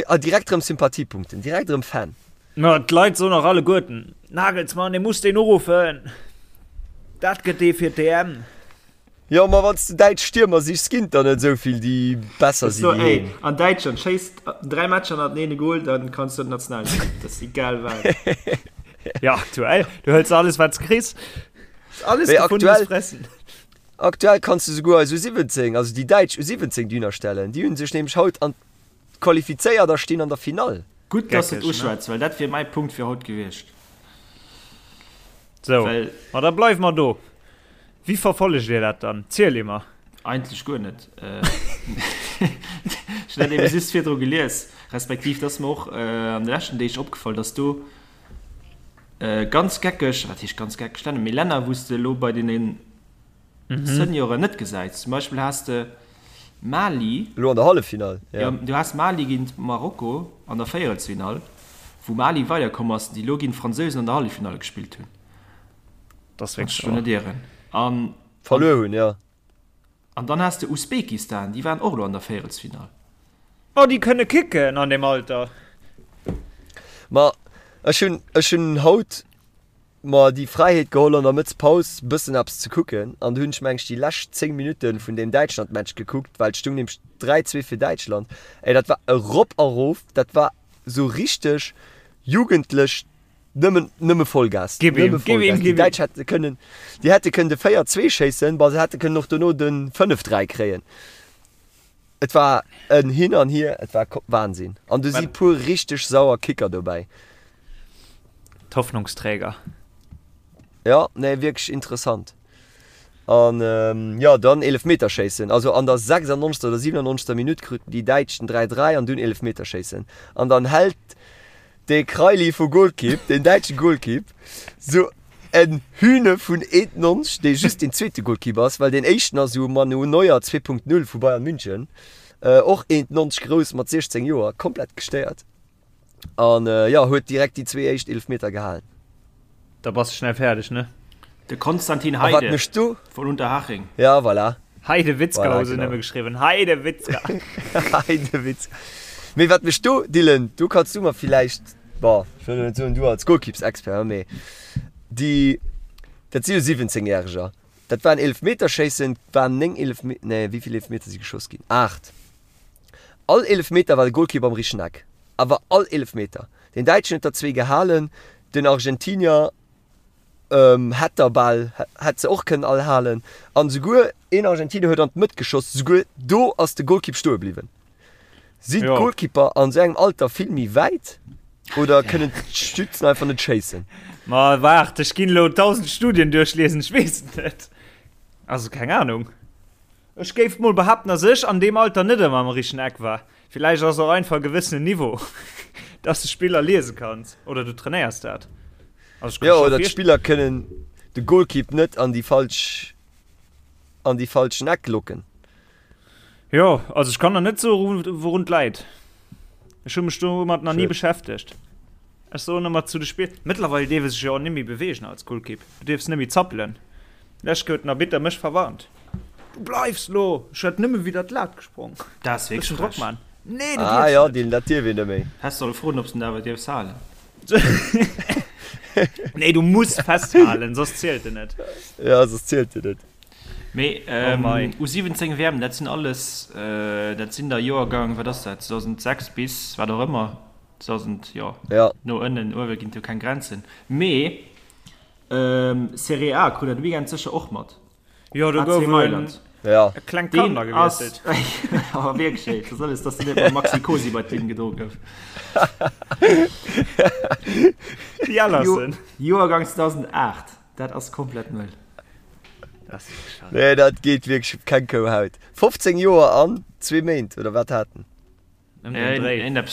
[SPEAKER 3] A direkt rëm Sympathiepunkten, direkt rëm Fan.
[SPEAKER 4] Ma d'Leit soen och alleguerten, Nagelsmann, dee muss deen uruffen, dat gëtt dee fir d'EM.
[SPEAKER 3] Jo, ma wann s de däitsch Stiermer sichs, ginn et der net esou vill, déi besser si wéi
[SPEAKER 5] heen. An Däitschland schéisst 3 Matcher hannerteneen e Gol, dann kanns du an d'Nationalekipp. Dat ass egal wat.
[SPEAKER 4] Jo, aktuell, du hëls alles wat s kriss.
[SPEAKER 3] Alles
[SPEAKER 4] Mee gefundenes Fressen.
[SPEAKER 3] Aktuell kanns du souguer eis U17, also déi däitsch U17 dohinner stellen. Déi hunn sech nämlech haut an Qualifizéiert a stinn an der Finall.
[SPEAKER 5] Gutt, dass de et uschwätz, well dat wier mäi Punkt fir haut gewiescht.
[SPEAKER 4] Sou, ma da bleiwe mer do. Wéi verfollegt Dir dat dann? Ziel emer.
[SPEAKER 5] Eigentlech guer net. Ech hunn dat ebe just virdru gelies, respektiv et ass mer och an de leschten Deeg opgefall, dass do ganz geckeg, wat heescht ganz geckeg Länner, mee Länner, wou s de elo bei deene Senioren net gesäits. Zum Beispill has de Mali.
[SPEAKER 3] Elo an der Halleffinall,
[SPEAKER 5] ja. Jo, du has Mali géint Marokko an der Véierelsfinall, wou Mali weiderkomm ass, déi elo géint d'Fransousen an der Halleffinall gespillt hunn.
[SPEAKER 4] Dat ass wierklech
[SPEAKER 5] wahr. Wann ech mech do net ieren. An.
[SPEAKER 3] Verluer hunn, jo.
[SPEAKER 5] An dann has de Usbekistan, déi waren och elo an der Véierelsfinall.
[SPEAKER 4] Oh, déi kënne kicken an deem Alter.
[SPEAKER 3] Ma ech hunn, ech hunn haut mer déi Fräiheet geholl an der Mëttspaus bëssen eppes ze kucken an du hunn ech meng ech déi lescht 10 Minutten vun deem Däitschland Match gekuckt, well et stung nämlech 3, 2 fir Däitschland. Ey dat war erop a rof, dat war sou richteg jugendlech, nëmmen nëmme Vollgas,
[SPEAKER 4] Gib ihm,
[SPEAKER 3] nëmme
[SPEAKER 4] gib ihm,
[SPEAKER 3] Vollgas. Déi
[SPEAKER 4] gib ihm.
[SPEAKER 3] Däitsch hätte kënnen, déi hätte kënnen de 4, 2 schéissen, bon se hätte kënnen och dono de 5, 3 kréien. Et war en Hin an Hier, et war Wahnsinn. An du si puer richteg sauer Kicker dobäi.
[SPEAKER 4] D'Hoffnungsträger.
[SPEAKER 3] Ja, nee, wierklech interessant. An jo, dann Eelefmeterschéissen. Also an der 96. oder 97. Minutt kruten déi Däitsch den 3, 3 an dunn Eelefmeterschéissen. An dann hält Dee Kraili vu Golkipp, deen däitsche Golkipp, sou en Hühne vun 1,90, dee just deen zweete Golkipp ass, well deen éischten ass esou Manu Neuer 2.0 vu Bayern München, och 1,90 grouss mat 16 Joer, komplett gestéiert. An jo, huet direkt déi zwee éischt Eelefmeter gehalen.
[SPEAKER 4] Da bass de schnell fäerdeg, ne?
[SPEAKER 5] De Konstantin Heide vun Unterhaching.
[SPEAKER 3] Ja, voilà.
[SPEAKER 4] Heidewitzka voilà, hu se nëmme geschriwwen. Heidewitzka.
[SPEAKER 3] Heidewitzka. Mee wat mech do, Dylan, do kanns du mer villäicht, bon, ech wëll net soen du als Golkippsexpert, mee déi, dat si jo 17 Järeger, dat waren Eelefmeterschéissen, waren 9 Eelefme-, nee, wéi vill Eelefmeter si geschoss ginn? 8. All Eelefmeter war de Golkipp am richtegen Eck. Awer all Eelefmeter. Den Däitschen huet der zwee gehalen, den Argentinier hätt der bal, hätt se och kënnen all halen. An esouguer een Argentinier huet an d'Mëtt geschoss, esouguer do ass de Golkipp stoe bliwwen. Sinn d'Golkipper an esou engem Alter vill méi wäit oder kënnen d'Stützen einfach net schéissen?
[SPEAKER 4] Ma waart, ech ginn elo 1000 Studien duerchliesen, ech weess et net. Also keng Ahnung. Ech géif mol behaapten, dass ech an deem Alter net ëmmer am richtegen Eck war. Villäicht ass och einfach e gewëssenen Niveau, dass de Spiller liese kanns oder du trainéiers dat.
[SPEAKER 3] Also ech kann Jo, oder d'Spiller kënnen de Golkipp net an déi falsch an déi falschen Eck locken.
[SPEAKER 4] Jo, also ech kann der net soe wourun et läit. Ech hu mech domat nach ni beschäftegt. Ech soen ëmmer zu de Spill, mëttlerweil dierf e sech jo och net méi beweegen als Golkipp. Du dierfs net méi zappelen. Lech huet den Arbitter mech verwarnt. Du bleifs lo! Ech hätt nëmme widder d'Lat gesprong.
[SPEAKER 5] Dat ass wierklech
[SPEAKER 4] frech. Drock man.
[SPEAKER 3] Nee, du ah, dierfs ja, net. Dat dierf een net méi.
[SPEAKER 5] Häss solle froen, ob s de en awer dierfs halen.
[SPEAKER 4] Nee, du muss festhalen, soss zielt en net.
[SPEAKER 3] Ja, soss zielt en net.
[SPEAKER 5] Mee oh ähm, U17 WM, dat sinn alles, äh, dat sinn der Joergang, wat ass dat, 2006 bis wat och ëmmer, 2000, jo,
[SPEAKER 3] ja.
[SPEAKER 5] no ënnen, uewe ginn et jo keng Grenzen. Mee ähm, Serie A krut der de Weekend sécher och mat.
[SPEAKER 4] Jo, do gouf en
[SPEAKER 3] ja.
[SPEAKER 4] e klengt Kand agewiesselt.
[SPEAKER 5] Awer wierklech, ey, dat alles, dass de net mam Maxi Cosi bei d'Linn gedro gouf.
[SPEAKER 4] Déi Ellersen.
[SPEAKER 5] Joergang 2008, dat ass komplett mëll.
[SPEAKER 3] Nee, dat geet wierklech op keng Kouhaut. 15 Joer an zwee Méint, oder wat hat en?
[SPEAKER 5] Wann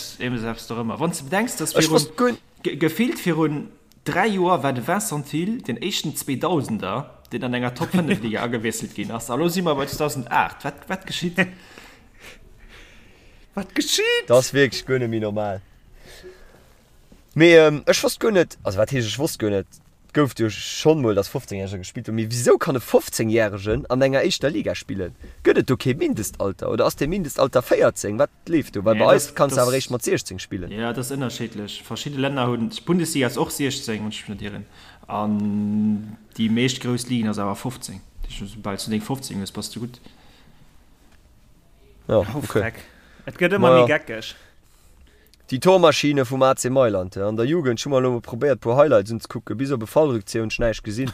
[SPEAKER 5] s de bedenks, dass virun, gefillt virun 3 Joer war de Vincent Thill den éischten Zweedausender, deen an enger Top 5 Liga agewiesselt ginn ass. A lo si mer bei 2008. Wat, wat geschitt?
[SPEAKER 4] Wat geschitt?
[SPEAKER 3] Dat ass wierklech guer net méi normal. Mee ech wosst guer net, also wat heescht ech wosst guer net, et gouf jo schonn mol, datt 15 Järger gespillt hunn, mee wisou kann e 15 Järegen an enger éischter Liga spillen? Gëtt et do kee Mindestalter oder ass dee Mindestalter 14? Wat leeft do? Well bei eis kanns de awer eréischt mat 16 spillen.
[SPEAKER 5] Jo, dat ass ënnerscheedlech. Verschidde Länner hunn, d'Bundesliga ass och 16, wann ech mech net ieren, an déi meescht grouss Ligen ass awer 15. Dat heescht, soubal s du deng 15 hues, bass de gutt.
[SPEAKER 3] Jo, okay.
[SPEAKER 4] Et gëtt ëmmer méi geckeg.
[SPEAKER 3] Déi Tormaschine vum AC Mailand an der Jugend, ech hu mer elo mol probéiert puer Highlights unzekucken, bis op e Fallrückzieher hunn ech näischt gesinn,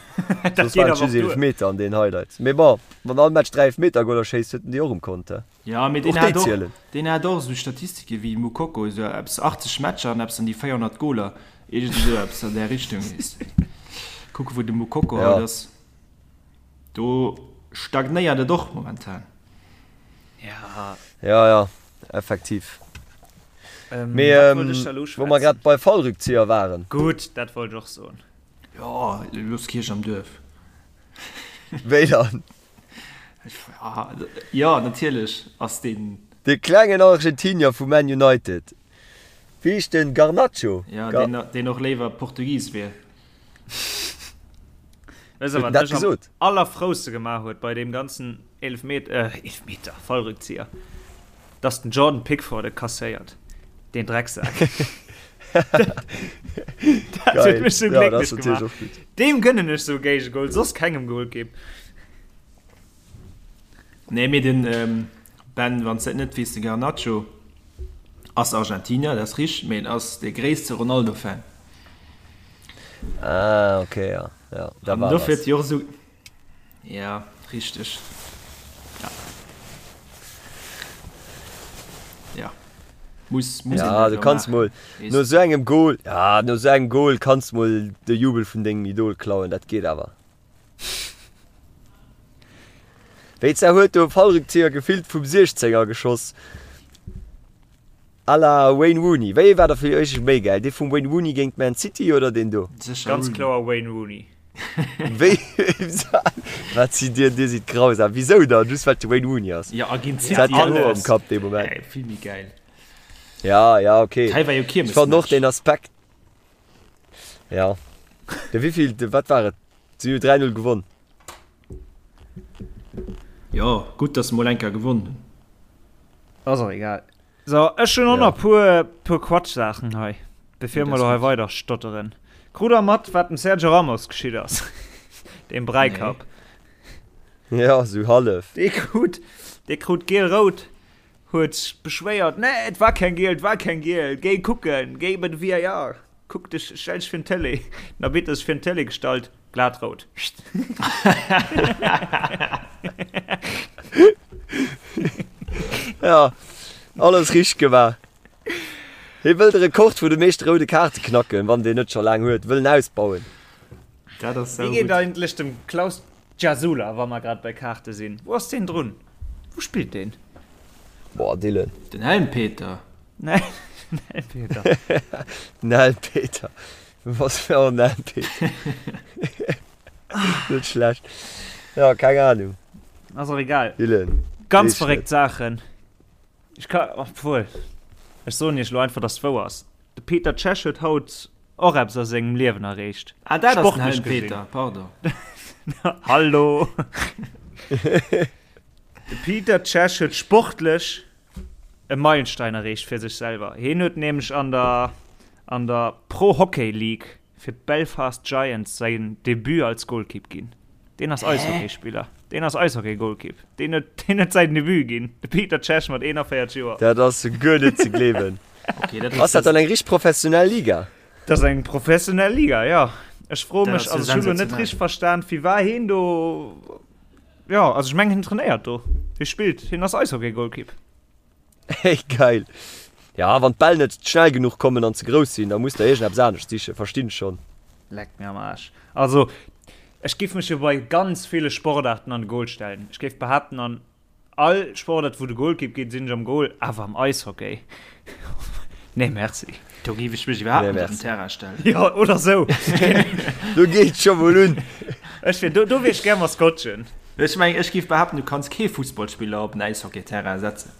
[SPEAKER 3] soss waren et just Eelefmeter an den Highlights. Mee bon, wann all Match 3 Eelefmetergoler schéisst, huet en déi och um Kont, he?
[SPEAKER 5] Jo, mee deen hat och, deen hat och esou Statistike wéi Moukoko, esou eppes 80 Matcher an eppes an déi 400 Goler, iergend esou eppes an där Richtung, weess de. Kucke wou de Moukoko haut ass, do stagnéiert et och momentan.
[SPEAKER 4] Ja.
[SPEAKER 3] Ja, ja, effektiv.
[SPEAKER 4] Ähm,
[SPEAKER 3] Mee
[SPEAKER 4] wat
[SPEAKER 3] ähm,
[SPEAKER 4] wollt ech da lo
[SPEAKER 3] wou mer
[SPEAKER 4] schwätzen?
[SPEAKER 3] grad bei Fallrückzieher waren.
[SPEAKER 4] Gutt, dat wollt ech och soen.
[SPEAKER 5] Jo, looss d'Kierch am Duerf.
[SPEAKER 3] Wéi dann?
[SPEAKER 5] Ja, jo, natierlech ass deen.
[SPEAKER 3] De klengen Argentinier vu Man United. Wéi heescht den? Garnacho?
[SPEAKER 5] Ja,
[SPEAKER 3] Gar
[SPEAKER 5] deen, deen och léiwer Portugis wier.
[SPEAKER 4] Weess der,
[SPEAKER 3] Huet en
[SPEAKER 4] wat
[SPEAKER 3] dat
[SPEAKER 4] mech am
[SPEAKER 3] gesot?
[SPEAKER 4] allerfrouste gemaach huet bei deem ganzen Eelefmet äh, Eelefmeter, Fallrückzieher? Dass den Jordan Pickford e kasséiert. Deen Drecksak. Dat huet
[SPEAKER 3] Geil.
[SPEAKER 4] mech sou
[SPEAKER 3] Ja, dat ass
[SPEAKER 4] glécklech
[SPEAKER 3] natierlech
[SPEAKER 4] gemaach.
[SPEAKER 3] och gutt.
[SPEAKER 4] Deem gënnen ech sou e Géigegol, soss kengem Golkipp.
[SPEAKER 5] Nee, mee den Ben, wann s de et net weess, de Garnacho ass Argentinier, dat ass richteg, mee en ass de gréisste Ronaldo-Fan.
[SPEAKER 3] Ah, okay, ja. Ja, da
[SPEAKER 5] An
[SPEAKER 3] war
[SPEAKER 5] dofir
[SPEAKER 3] was.
[SPEAKER 5] huet si och esou. Ja, richteg. Ja. Ja. Muss, muss
[SPEAKER 3] Ja, du kanns mol no sou engem Goal, ja, no sou engem Goal kanns mol de Jubel vun dengem Idol klauen, dat geet awer. Wéi zwar huet do e Fallrückzieher gefillt vum 16er geschoss. À la Wayne Rooney. Wéi ee war da fir iech méi gäil? Dee vum Wayne Rooney géint Man City oder deen do?
[SPEAKER 5] Sécher
[SPEAKER 4] Ganz
[SPEAKER 5] Rooney.
[SPEAKER 4] kloer Wayne Rooney.
[SPEAKER 3] Wéi wat sidd dir? Dir sidd grausam. Wisou dann? Just well et de Wayne Rooney ass?
[SPEAKER 5] Ja, a géint
[SPEAKER 3] Se hat
[SPEAKER 5] City
[SPEAKER 3] keng Hoer um
[SPEAKER 5] alles.
[SPEAKER 3] Kapp dee Moment.
[SPEAKER 5] Ey, vill méi gäil.
[SPEAKER 3] Ja, ja, okay.
[SPEAKER 5] Hei war jo
[SPEAKER 3] Ech fannen och
[SPEAKER 5] Kiermesmatch.
[SPEAKER 3] deen Aspekt. Ja. De wéivill, wat war et? Si hu 3-0 gewonn.
[SPEAKER 5] Jo, gutt, dass se mol eng Kéier gewonn hunn.
[SPEAKER 4] Ass och egal. So, ech hunn och nach puer, puer Quatschsaachen hei, bevir mer elo hei weider stotteren. Krut der mat, wat dem Sergio Ramos geschitt ass? Deem Bräikapp.
[SPEAKER 3] Nee. Ja, sou hallef.
[SPEAKER 4] Dee krut, dee krut giel-rout, huet sech beschwéiert, Nee, et war keng giel, et war keng giel, géi kucken, géi bei de VAR, kuck dech, stell dech virun d'Tëlee. Den Arbitter sech virun d'Tëlee gestallt, Glat rout.
[SPEAKER 3] Ja, alles richteg gemaach. Hie wëll de Rekord vun de meeschte roude Kaarte knacken, wann deen net scho laang huet, wëll en ausbauen.
[SPEAKER 5] Dat ass
[SPEAKER 4] Wéi geet eigentlech dem Klaus Gjasula, wa mer grad bei Kaarte sinn? Wou ass deen drun? Wou spillt deen?
[SPEAKER 3] Boah, Dylan.
[SPEAKER 5] Den Helmpeter.
[SPEAKER 4] Den Helmpeter.
[SPEAKER 3] Den Helmpeter. Was fir en Helmpeter. Net schlecht. Ja, keng Ahnung.
[SPEAKER 4] Ass och egal.
[SPEAKER 3] Dylan.
[SPEAKER 4] Ganz verréckt Saachen. Ech ka, obwuel, ech soen iech elo einfach, dass et wouer ass. De Peter Cech huet haut och eppes a sengem Liewen erreecht.
[SPEAKER 5] Ah, dat ass den
[SPEAKER 4] Sportlech
[SPEAKER 5] Helm
[SPEAKER 4] gesinn.
[SPEAKER 5] Peter, pardon.
[SPEAKER 4] Hallo! De Peter Cech huet sportlech e Meilenstein erreecht fir sech selwer. Hien huet nämlech an der an der Pro Hockey League fir d'Belfast Giants säin Debut als Golkipp ginn. Deen ass Eishockeyspiller. Deen ass Eishockey-Golkipp. Deen huet, deen huet säin Debut ginn. De Peter Cech mat 41 Joer.
[SPEAKER 3] Dat ass guer net ze gleewen.
[SPEAKER 5] Okay, dat
[SPEAKER 3] Ass dat dann eng richteg professionell Liga?
[SPEAKER 4] Dat ass eng professionell Liga, jo. Ech froe
[SPEAKER 5] Dat
[SPEAKER 4] mech,
[SPEAKER 5] ass jo
[SPEAKER 4] also ech hu lo net
[SPEAKER 5] sensationell.
[SPEAKER 4] richteg verstan, wie war hien do. Jo, also ech mengen hien trainéiert do. Hie spillt, hien ass Eishockey-Golkipp.
[SPEAKER 3] Hey, geil. Ja, wann d'Bäll net schnell genuch kommen an ze grouss sinn, da muss der iergendeppes anescht sichen, verstinn ech schonn.
[SPEAKER 4] Leck mir am Aarsch. Also, ech giff mech jo bei ganz ville Sportarten an de Goal stellen. Ech géif behaapten, an all Sportart, wou de Golkipp geet, sinn ech am Goal, awer am Eishockey, nee merci.
[SPEAKER 5] Do géif ech mech iwwerhaapt
[SPEAKER 3] Nee,
[SPEAKER 5] net op den
[SPEAKER 3] merci.
[SPEAKER 5] Terrain stellen.
[SPEAKER 4] Jo, oder sou.
[SPEAKER 3] Do geet scho mol un.
[SPEAKER 4] Ech wier, do, do wier ech gär Maskottchen.
[SPEAKER 5] Ech mengen, ech géif behaapten, du kanns kee Fussballspiller op en Äishockeyterrain setzen.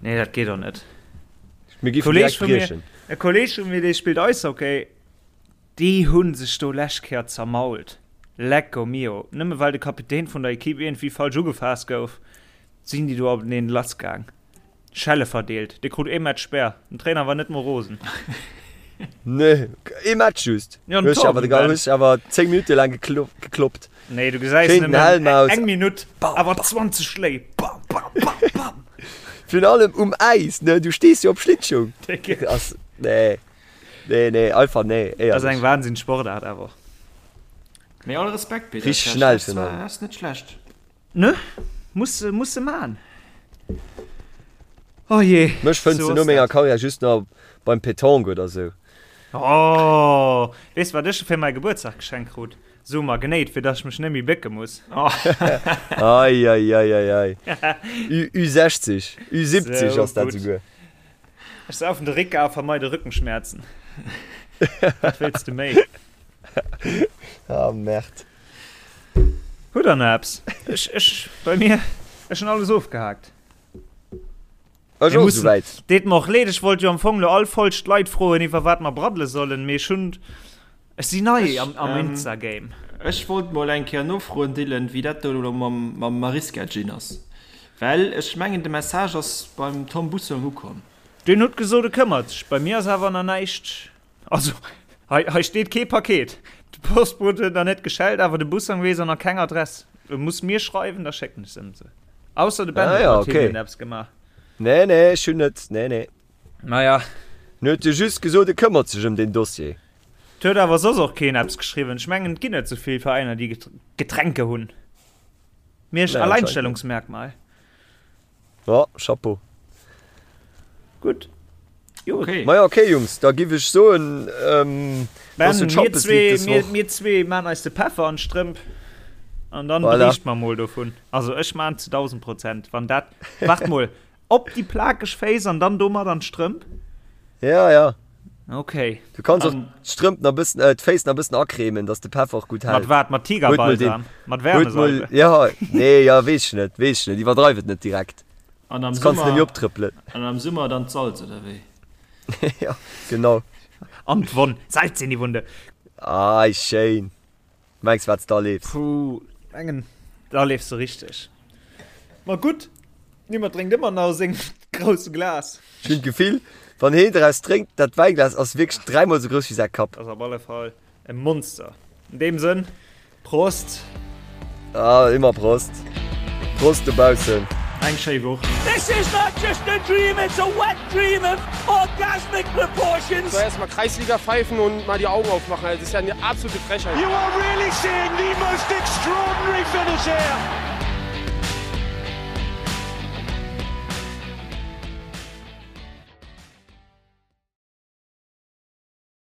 [SPEAKER 4] Nee, dat geet och net.
[SPEAKER 3] Mir géifen
[SPEAKER 4] Kolleg
[SPEAKER 3] direkt
[SPEAKER 4] vu mir,
[SPEAKER 3] briechen.
[SPEAKER 4] e Kolleg vu mir, dee spillt Eishockey, déi hu sech do lescht Kéier zermault. Lecco mio. Nëmme well de Kapitän vun der Equipe iergendwéi falsch ugefaasst gouf, sinn déi do openeen lassgaang. Schelle verdeelt. Dee krut ee Match Spär. Den Trainer war net mol rosen.
[SPEAKER 3] Nee, ee Match just.
[SPEAKER 4] Ja,
[SPEAKER 3] Hues awer de hues awer 10 Minutte laang gekloppt.
[SPEAKER 4] Nee, du gesäis
[SPEAKER 3] Schéin den Helm aus.
[SPEAKER 4] eng Minutt, awer 20 Schléi. Bam, bam, bam, bam.
[SPEAKER 3] Virun allem um Äis, ne? Du stees jo op Schlittschung. Ass, nee. Nee, nee, einfach nee,
[SPEAKER 4] éierlech. Ass eng Wahnsinn Sportaart awer.
[SPEAKER 5] Mee all Respekt, Peter.
[SPEAKER 3] Richteg schnell virun allem.
[SPEAKER 5] Dat ass net schlecht.
[SPEAKER 4] Ne? Muss se, muss se man. Oh je.
[SPEAKER 3] Mech fënns de no menger Karriär just nach beim Petanque oder sou.
[SPEAKER 4] Oh, weess wat ech fir mäi Gebuertsdag geschenkt krut? Sou Magnéit, fir dass ech mech net méi bécke muss.
[SPEAKER 3] Ei, ei, ei, ei, ei. Ü, Ü60, Ü70 ass dat souguer.
[SPEAKER 4] Ech saufen de Ricca a vermeide Rückenschmerzen. Wat wéills de méi?
[SPEAKER 3] Ah, Merde.
[SPEAKER 4] Hutt der nach eppes? Ech, ech, bei mir, ech hunn alles ofgehaakt.
[SPEAKER 3] Ech och souwäit.
[SPEAKER 4] Deet mer och leed, ech wollt jo am Fong lo all Folg d'Leit froen, iwwer wat mer braddele sollen, mee ech hunn, ech sinn nei am, am Insta-Game.
[SPEAKER 5] Ech wollt mol eng Kéier nofroen, Dylan, wéi dat do elo mam, mam Mariska Gin ass, well ech mengen de Message ass beim Tom Bussong ukomm.
[SPEAKER 4] Deen huet gesot, e këmmert sech. Bei mir ass awer nach näischt. Also, hei, hei steet kee Paket. De Postbot huet nach net geschellt, awer de Bussang weess och nach keng Adress. E muss mir schreiwen, da schécken ech se em se. Ausser de Ben
[SPEAKER 3] Ah
[SPEAKER 4] huet
[SPEAKER 3] ja,
[SPEAKER 4] mat
[SPEAKER 3] okay.
[SPEAKER 4] hinnen eppes gemaach.
[SPEAKER 3] Nee, nee, ech hunn net, nee, nee.
[SPEAKER 4] Naja.
[SPEAKER 3] En huet jo just gesot, e këmmert sech ëm deen Dossier.
[SPEAKER 4] Et huet awer soss och keen eppes geschriwwen. Ech mengen, et ginn net sou vill Veräiner, déi Getränke hunn. Miersch,
[SPEAKER 3] Nee, anscheinend net.
[SPEAKER 4] Alleinstellungsmerkmal.
[SPEAKER 3] Ja, Chapeau.
[SPEAKER 4] Gutt.
[SPEAKER 5] Jo. Okay.
[SPEAKER 3] Maja, okay, Jungs, da giff ech soen, ähm,
[SPEAKER 4] Ben,
[SPEAKER 3] dass du
[SPEAKER 4] mir
[SPEAKER 3] Champions League
[SPEAKER 4] zwee,
[SPEAKER 3] des
[SPEAKER 4] mir,
[SPEAKER 3] Woch.
[SPEAKER 4] mir zwee maan eis de Peffer an d'Strëmp an dann
[SPEAKER 3] Voilà.
[SPEAKER 4] beriicht mer mol dovun. Also ech maan zu 1000 Prozent, wann dat, wart mol, op déi plakeg Féiss an dann domat an d'Strëmp?
[SPEAKER 3] Ja, ja.
[SPEAKER 4] Okay.
[SPEAKER 3] Du kanns och
[SPEAKER 5] An-
[SPEAKER 3] d'Strëmp nach bëssen, äh, d'Féiss nach bëssen acremen, dass de Peffer och gutt
[SPEAKER 4] Mat
[SPEAKER 3] hält.
[SPEAKER 4] wat? Mat
[SPEAKER 3] Huet mol den,
[SPEAKER 4] Tigerbalsam? Mat
[SPEAKER 3] huet mol,
[SPEAKER 4] Wärmesalbe?
[SPEAKER 3] ja, nee, ja, weess ech net, weess ech net, iwwerdreif et net direkt.
[SPEAKER 5] An am
[SPEAKER 3] Sonst kanns du
[SPEAKER 5] Summer,
[SPEAKER 3] nämlich optrëppelen.
[SPEAKER 5] an am Summer dann d'Salz, oder wéi?
[SPEAKER 3] Ja, genau.
[SPEAKER 4] An d'Wonn. Salz in die Wunde.
[SPEAKER 3] Ei, schéin. Mengs wat s da leefs.
[SPEAKER 4] Puh, mengen da leefs de richteg. Ma gutt, niemand drénkt ëmmer nach aus sengem grousse Glas.
[SPEAKER 3] Ech hunn d'Gefill, wann heen draus drénkt, dat Wäiglas ass wierklech dräimol sou grouss wéi säi Kapp.
[SPEAKER 4] Ass op alle Fall e Monster. In deem Sënn, Prost!
[SPEAKER 3] Ah, immer Prost. Prost dobaussen.
[SPEAKER 5] Eng schéi Woch.
[SPEAKER 1] This is not just a dream, it's a wet dream of orgasmic proportions.
[SPEAKER 2] So erstmal Kreisliga pfeifen und mal die Augen aufmachen. Also, das ist ja eine absolute Frechheit.
[SPEAKER 1] You are really seeing the most extraordinary finish here.